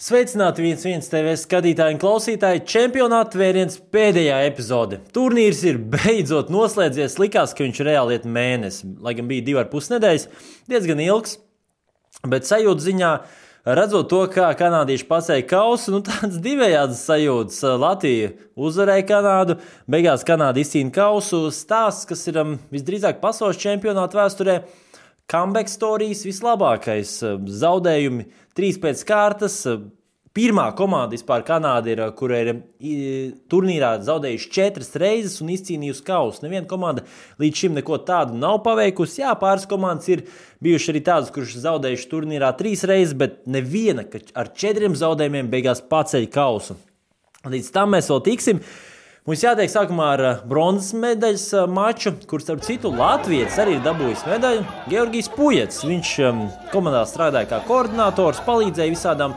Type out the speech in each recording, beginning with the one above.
Sveicināti 1-1 TV skatītāji un klausītāji. Čempionāta vēriens pēdējā epizode. Turnīrs ir beidzot noslēdzies. Likās, ka viņš reāli iet mēnesi, lai gan bija 2,5 nedēļas. Diezgan ilgs, bet sajūta ziņā, redzot to, kā kanādieši pacēla kausu, tāds divējādas sajūtas. Latvija uzvarēja Kanādu, beigās Kanāda izcīna kausu. Stāsts, kas ir visdrīzāk pasaules čempionāta vēsturē. Comeback stories vislabākais, zaudējumi 3 pēc kārtas. Pirmā komanda vispār Kanāda ir, kura ir turnīrā zaudējuši 4 reizes un izcīnījusi kausu. Neviena komanda līdz šim neko tādu nav paveikusi. Jā, pāris komandas ir bijuši arī tādas, kuras zaudējuši turnīrā 3 reizes, bet neviena ar 4 zaudējumiem beigās paceļ kausu. Līdz tam mēs vēl tiksim. Mums jātiek sākumā ar bronzas medaļas maču, kur starp citu Latvijas arī ir dabūjis medaļu. Georgijs Pujets, viņš komandā strādāja kā koordinators, palīdzēja visādām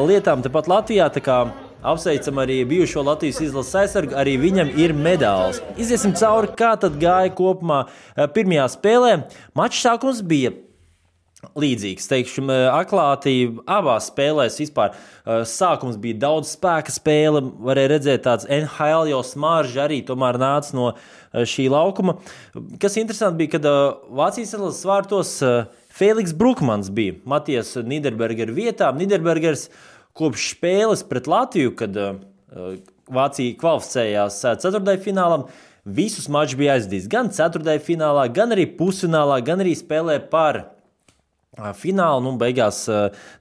lietām tepat Latvijā, tā kā apsveicam arī bijušo Latvijas izlases aizsargu, arī viņam ir medāls. Iziesim cauri, kā tad gāja kopumā pirmajā spēlē. Mačs sākums bija līdzīgs, teikšu, atklātība abās spēlēs vispār. Sākums bija daudz spēka spēle, varēja redzēt tāds NHL jau smarža arī tomēr nāca no šī laukuma. Kas interesanti bija, kad Vācijas izlases vārtos Feliks Brukmans bija Matijas Niderbergera vietā. Niderbergers kopš spēles pret Latviju, kad Vācija kvalificējās ceturtdaļfinālam, visus mačus bija aizdījis gan ceturtdaļfinālā, gan arī pusfinālā, gan arī spēlē par finālu, beigās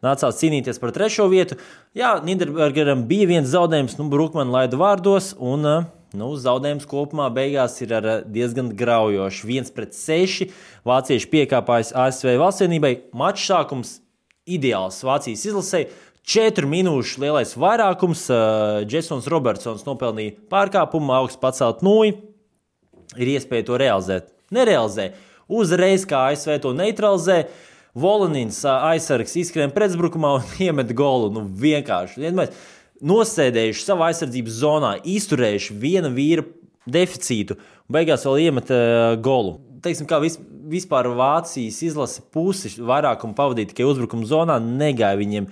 nācās cīnīties par 3. vietu. Jā, Niderbergeram bija viens zaudējums, Brukmanu laida vārdos, un zaudējums kopumā beigās ir ar diezgan graujoši. 1-6, vācieši piekāpājas ASV valstsienībai. Mačs sākums ideāls Vācijas izlasei. 4 minūšu lielais vairākums. Jasons Robertsons nopelnīja pārkāpumu, augsts pacelt nūju. Ir iespēja to realizēt. Nerealizē. Uzreiz kā ASV to neutralizē. Volanins aizsargs izskrien pretuzbrukumā un iemet golu. Vienkārši. Nosēdējuši savā aizsardzības zonā, izturējuši viena vīra deficītu un beigās vēl iemet golu. Teiksim, kā vispār Vācijas izlase pusi vairākumu pavadīja tikai uzbrukuma zonā, negāja viņiem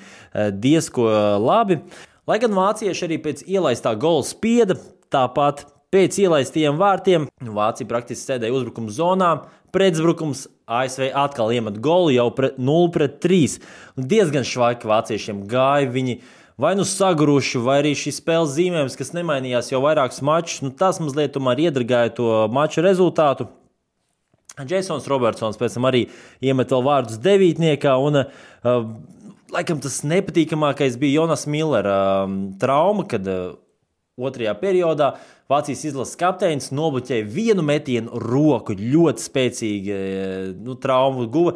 diezko labi. Lai gan vācieši arī pēc ielaistā gola spieda, tāpat pēc ielaistajiem vārtiem Vācija praktiski sēdēja uzbrukuma zonā, pretuzbrukums ASV atkal iemet golu jau 0-3. Diezgan švaiki vāciešiem gāja, viņi vai saguruši, vai arī šis spēles zīmējums, kas nemainījās jau vairākus mačus, tas mazliet tomēr iedragāja to maču rezultātu. Jasons Robertsons pēc tam arī iemet vēl vārdus devītniekā, un laikam tas nepatīkamākais bija Jonas Millera trauma, kad 2. periodā Vācijas izlases kapteinis nobloķēja vienu metienu roku, ļoti spēcīgi traumu guva.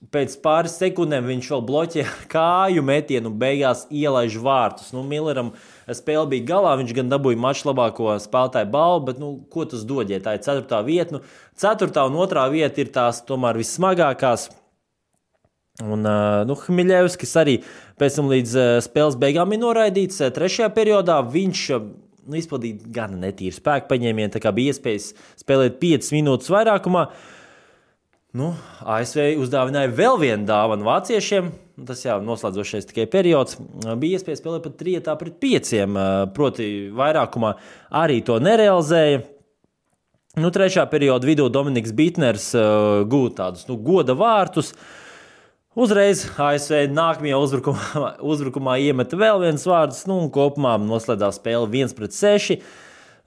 Pēc pāris sekundēm viņš vēl bloķē kāju metienu un beigās ielaiž vārtus. Milleram spēle bija galā, viņš gan dabūja maču labāko spēlētāju balvu, bet ko tas dod, ja tā ir 4. vieta? 4. un 2. vieta ir tās tomēr vissmagākās. Un Hmiļevskis arī pēc tam līdz spēles beigām ir noraidīts. 3. periodā viņš izpildīja gan netīru spēku paņēmienu, tā kā bija iespējas spēlēt 5 minūtes vairākumā. ASV uzdāvināja vēl vienu dāvanu vāciešiem. Tas jau noslēdzošais tikai periods. Bija iespēja spēlēt pat 3-5, proti vairākumā arī to nerealizēja. 3. perioda vidū Dominiks Bitners gūta tādus goda vārtus. Uzreiz ASV nākamajā uzbrukumā iemeta vēl viens vārds, un kopumā noslēdzās spēle 1-6.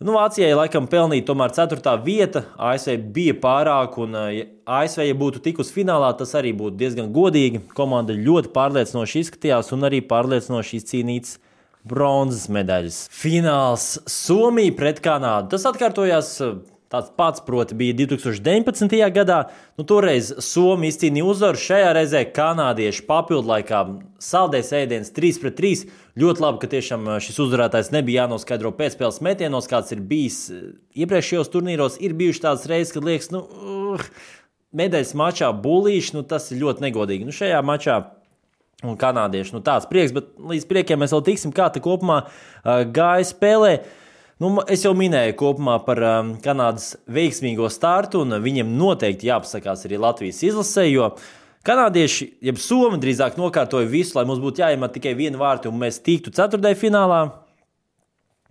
Vācijai laikam pelnīja tomēr 4. vieta, ASV bija pārāk, un ASV, ja būtu tikus finālā, tas arī būtu diezgan godīgi. Komanda ļoti pārliecinoši izskatījās un arī pārliecinoši izcīnīts bronzas medaļas. Fināls Somija pret Kanādu. Tas atkārtojās tāds pats, proti, bija 2019. gadā. Toreiz Somija izcīnīja uzvaru, šajā reizē kanādieši papildlaikā saldējs ēdiens 3-3. Ļoti labi, ka tiešām šis uzvarētājs nebija jānoskaidro pēcspēles metienos, kāds ir bijis iepriekšējos turnīros. Ir bijuši tādas reizes, kad liekas, medaļas mačā bulīši, tas ir ļoti negodīgi. Šajā mačā un kanādieši, tāds prieks, bet līdz priekiem mēs vēl tiksim, kā te kopumā gāja spēlē. Es jau minēju kopumā par Kanādas veiksmīgo startu, un viņiem noteikti jāpasakās arī Latvijas izlasē, jo Kanādieši, jeb Somi drīzāk nokārtoja visu, lai mums būtu jāiemet tikai viena vārti un mēs tiktu ceturtajā finālā.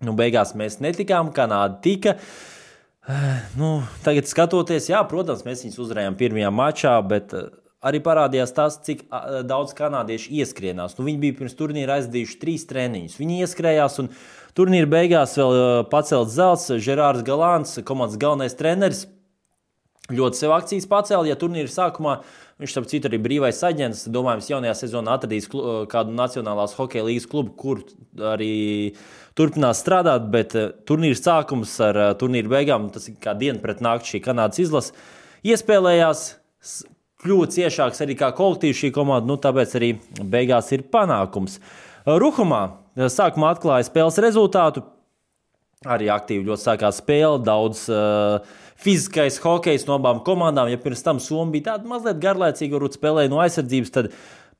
Beigās mēs netikām, Kanāda tika. Tagad skatoties, jā, protams, mēs viņus uzvarējām pirmajā mačā, bet arī parādījās tas, cik daudz kanādieši ieskrienās. Viņi bija pirms turnīra aizdījuši 3 treniņus. Viņi ieskrējās un turnīra beigās vēl pacelt zelts. Žerārs Galāns, komandas galvenais treneris, ļoti sev akcijas pacēla, ja turnīra sākumā viņš, starp citu, arī brīvais aģents, domājams, jaunajā sezonā atradīs kādu Nacionālās hokeja līgas klubu, kur arī turpinās strādāt, bet turnīra sākums ar turnīra beigām, tas ir kā diena pret nakti šī Kanādas izlase, iespēlējās, kļuva ciešāks arī kā kolektīvs šī komanda, tāpēc arī beigās ir panākums. Ruhumā sākumā atklāja spēles rezultātu, arī aktīvi ļoti sākās spēle, daudz fiziskais hokejs no abām komandām. Ja pirms tam Somi bija tāda mazliet garlaicīga, varbūt spēlēja no aizsardzības, tad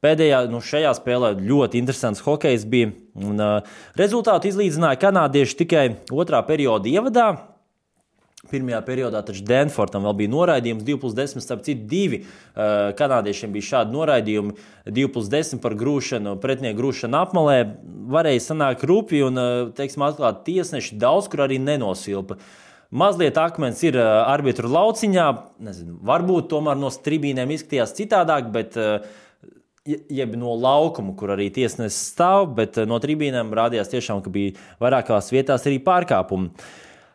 pēdējā, šajā spēlē ļoti interesants hokejs bija. Un, rezultātu izlīdzināja kanādieši tikai otrā perioda ievadā. Pirmajā periodā taču Danfortam vēl bija noraidījums 2+10, starp citu 2 kanādiešiem bija šādi noraidījumi 2+10 par grūšanu, pretinieku grūšanu apmalē. Varēja sanākt rupi un, atklāt tiesneši daudz, kur arī nenosilpa. Mazliet akmens ir arbitru lauciņā, nezinu, varbūt tomēr no tribīnēm izskatījās citādāk, bet jeb no laukuma, kur arī tiesnesis stāv, bet no tribīnēm rādījās tiešām, ka bija vairākās vietās arī pārkāpumi.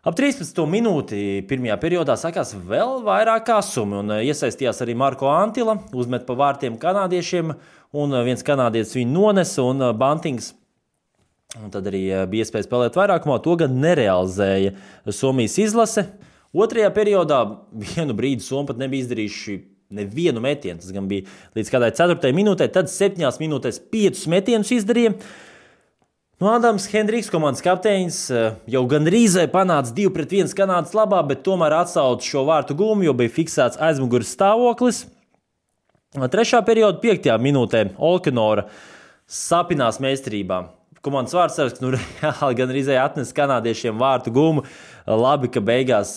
Ap 13. minūti pirmajā periodā sākās vēl vairāk kāsumi un iesaistījās arī Marko Antila, uzmet pa vārtiem kanādiešiem un viens kanādietis viņu nonesa un Bantings. Un tad arī bija iespēja spēlēt vairākumā, to gan nerealizēja Somijas izlase. Otrajā periodā vienu brīdi Somi pat nebija izdarījuši nevienu metienu, tas gan bija līdz kādai 4. minūtē, tad 7 minūtēs 5 metienus izdarīja. Adams Hendriks, komandas kapteinis, jau gandrīz panāca 2-1 Kanādas labā, bet tomēr atsauca šo vārtu gūmu, jo bija fiksēts aizmugures stāvoklis. 3. perioda 5. minūtē Olkinora sapinās meistarībā. Komandas vārdsargs reāli gan arī atnesa kanādiešiem vārtu gumu. Labi, ka beigās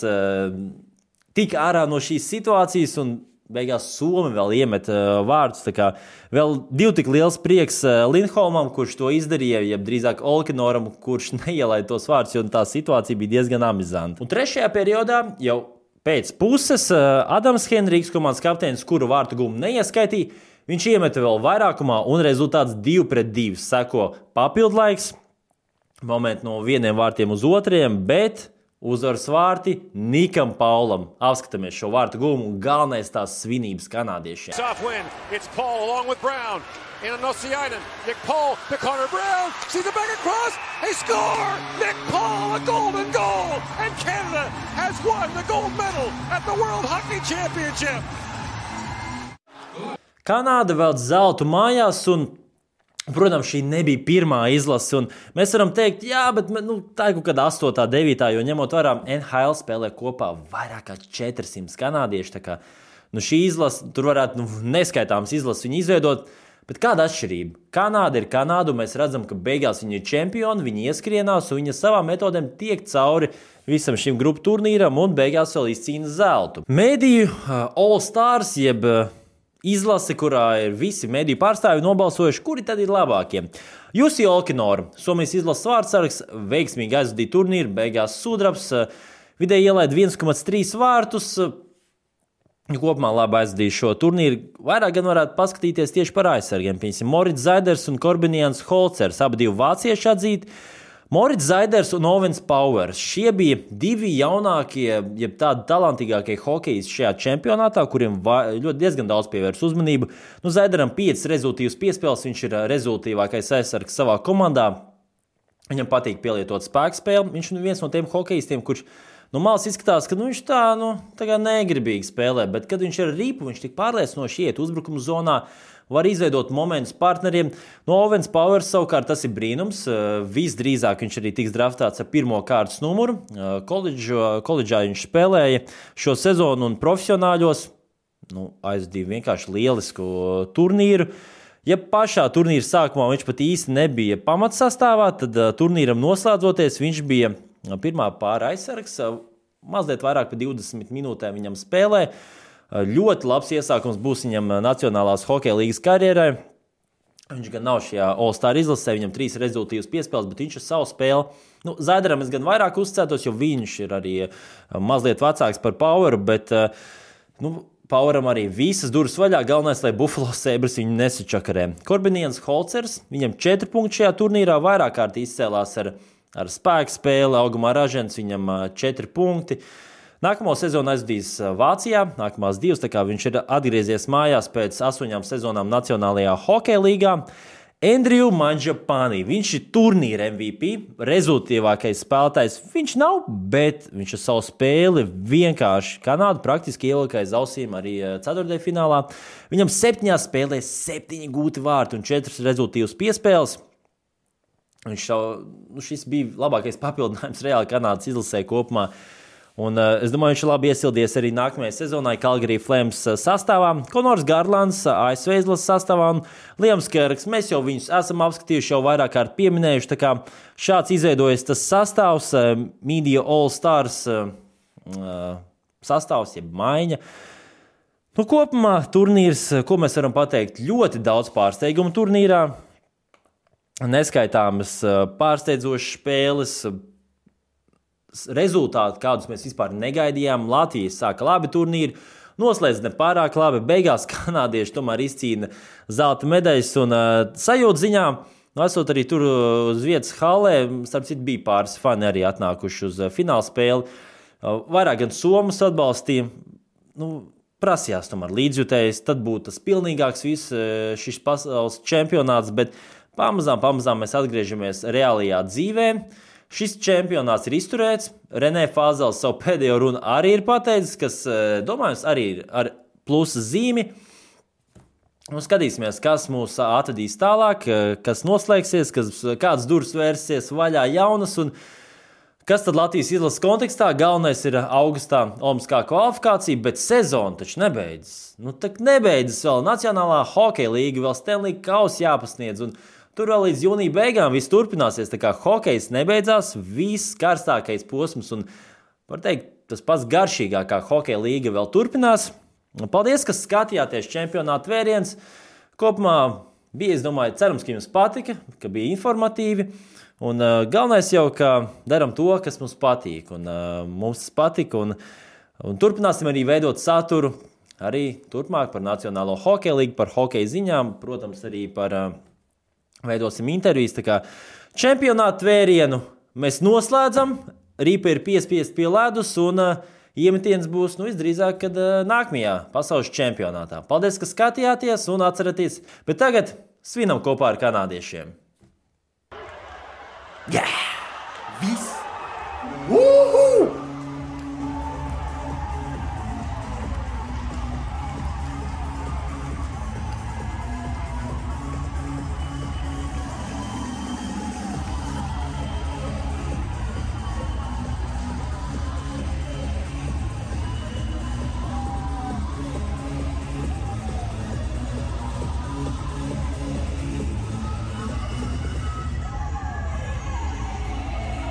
tika ārā no šīs situācijas un beigās Somi vēl iemet vārdus. Tā kā vēl 2 tik liels prieks Lindholmam, kurš to izdarīja, jeb drīzāk Olkinoram, kurš neielaida tos vārdus, jo tā situācija bija diezgan amizanta. Un 3. periodā jau pēc puses Adams Hendriks, komandas kapteinis, kuru vārtu gumu neieskaitīja, viņš iemeta vēl vairākumā un rezultāts 2-2. Seko papildlaiks, momenti no vieniem vārtiem uz otriem, bet uzvaras vārti Nikam Paulam. Apskatāmies šo vārtu gumu un galvenais tās svinības kanādiešiem. It's Paul along with Brown. In Nosiainen. Nick Paul to Connor Brown. Sees the back across. They score! Nick Paul, a golden goal! And Canada has won the gold medal at the World Hockey Championship. Kanāda vēl zeltu mājās un, protams, šī nebija pirmā izlase. Un mēs varam teikt, jā, bet tā ir kaut kāda 8. 9. jo ņemot vērā NHL spēlē kopā vairāk kā 400 kanādieši. Tā kā, šī izlase, tur varētu neskaitāms izlases viņu izveidot. Bet kāda atšķirība? Kanāda ir Kanāda, un mēs redzam, ka beigās viņi ir čempioni, viņi ieskrienās, un viņi savām metodēm tiek cauri visam šim grupu turnīram, un beigās vēl izcīna zeltu. Mediju All Stars, jeb izlase, kurā ir visi mediju pārstāvji nobalsojuši, kuri tad ir labākie. Jussi Olkinora, Somijas izlases vārdsargs, veiksmīgi aizvadīja turnīru, beigās sudrabs, vidēji ielaida 1,3 vārtus, kopumā labi aizvadīja šo turnīru. Vairāk gan varētu paskatīties tieši par aizsargiem. Piemēram, Moritz Zaiders un Korbinians Holcers, abi divi vācieši atzīti. Moritz Zaiders un Owens Powers. Šie bija 2 jaunākie, jeb tādi talantīgākie hokejisti šajā čempionātā, kuriem ļoti diezgan daudz pievērs uzmanību. Zaideram 5 rezultīvas piespēles, viņš ir rezultīvākais aizsargs savā komandā. Viņam patīk pielietot spēkspēli. Viņš ir viens no tiem hokejistiem, kurš no malas izskatās, ka viņš tā kā negribīgi spēlē, bet kad viņš ir ripu, viņš tik pārliecinoši iet uzbrukuma zonā, var izveidot momentus partneriem. No Owens Powers savukārt tas ir brīnums. Visdrīzāk viņš arī tiks draftāts ar 1. kārtas numuru. Koledžā viņš spēlēja šo sezonu un profesionāļos. Aizvadīja vienkārši lielisku turnīru. Ja pašā turnīra sākumā viņš pat īsti nebija pamatsastāvā, tad turnīram noslēdzoties viņš bija pirmā pāra aizsargs. Mazliet vairāk par 20 minūtēm viņam spēlē. Ļoti labs iesākums būs viņam Nacionālās hokeja līgas karjerai. Viņš gan nav šajā All-Star izlasē, viņam 3 rezultīvas piespēles, bet viņš ar savu spēli. Zaidaram es gan vairāk uzticētos, jo viņš ir arī mazliet vecāks par Poweru, bet Poweram arī visas durvis vaļā. Galvenais, lai Buffalo Sabres viņu nesačakarē. Korbiniens Holcers, viņam 4 punkti šajā turnīrā, vairāk kārt izcēlās ar spēku spēli, augumā ražens, viņam 4 punkti. Nākamo sezonu aizvadīs Vācijā, nākamās 2, tā kā viņš ir atgriezies mājās pēc 8 sezonām Nacionālajā hokeja līgā. Andrew Mangiapane, viņš ir turnīra MVP, rezultīvākais spēlētājs. Viņš nav, bet viņš ar savu spēli vienkārši Kanādu praktiski ielika aiz ausīm arī ceturtdaļfinālā. Viņam 7 spēlēs 7 gūti vārti un 4 rezultīvas piespēles. Šis bija labākais papildinājums reāli Kanādas izlasē kopumā. Un es domāju, viņš labi iesildies arī nākamajai sezonai Calgary Flames sastāvā. Konors Garlands, ASV izlases sastāvā un Liams Kerks. Mēs jau viņus esam apskatījuši, jau vairāk kārt pieminējuši. Tā kā šāds izveidojas tas sastāvs, Media All-Stars sastāvs, jeb maiņa. Kopumā turnīrs, ko mēs varam pateikt, ļoti daudz pārsteigumu turnīrā. Neskaitāmas pārsteidzošas spēles, rezultāti, kādus mēs vispār negaidījām. Latvijas sāka labi turnīri, noslēdz ne pārāk labi. Beigās kanādieši tomēr izcīna zelta medaļas un sajūta ziņā. Esot arī tur uz vietas hallē, starp citu bija pāris fani arī atnākuši uz fināla spēli. Vairāk gan somas atbalstīja. Prasījās tomēr līdzjutējs, tad būtu tas pilnīgāks viss šis pasaules čempionāts, bet pamazām mēs atgriežamies reālajā dzīvē. Šis čempionāts ir izturēts. Renē Fāzels savu pēdējo runu arī ir pateicis, kas, domājams, arī ir ar plusa zīmi. Skatīsimies, kas mūs atvedīs tālāk, kas noslēgsies, kādas durvis vērsies vaļā jaunas un kas tad Latvijas izlases kontekstā. Galvenais ir augustā olimpiskā kvalifikācija, bet sezona taču nebeidzas. Nebeidzas vēl Nacionālā hokeja līga, vēl Stanley Kauss jāpasniedz un tur vēl līdz jūnija beigām viss turpināsies, tā kā hokejs nebeidzās, viss karstākais posms un, var teikt, tas pats garšīgākā hokeja līga vēl turpinās. Paldies, ka skatījāties čempionāta vēriens. Kopumā bija, es domāju, cerams, ka jums patika, ka bija informatīvi. Un galvenais jau, ka daram to, kas mums patīk. Un mums tas patika un turpināsim arī veidot saturu arī turpmāk par Nacionālo hokeja līgu, par hokeja ziņām, protams, arī par veidosim intervijas, tā kā čempionāta vērienu mēs noslēdzam, Rīpa ir piespiest pie ledus un iemetiens būs, visdrīzāk, kad nākamajā pasaules čempionātā. Paldies, ka skatījāties un atcerieties, bet tagad svinam kopā ar kanādiešiem. Yeah! Viss!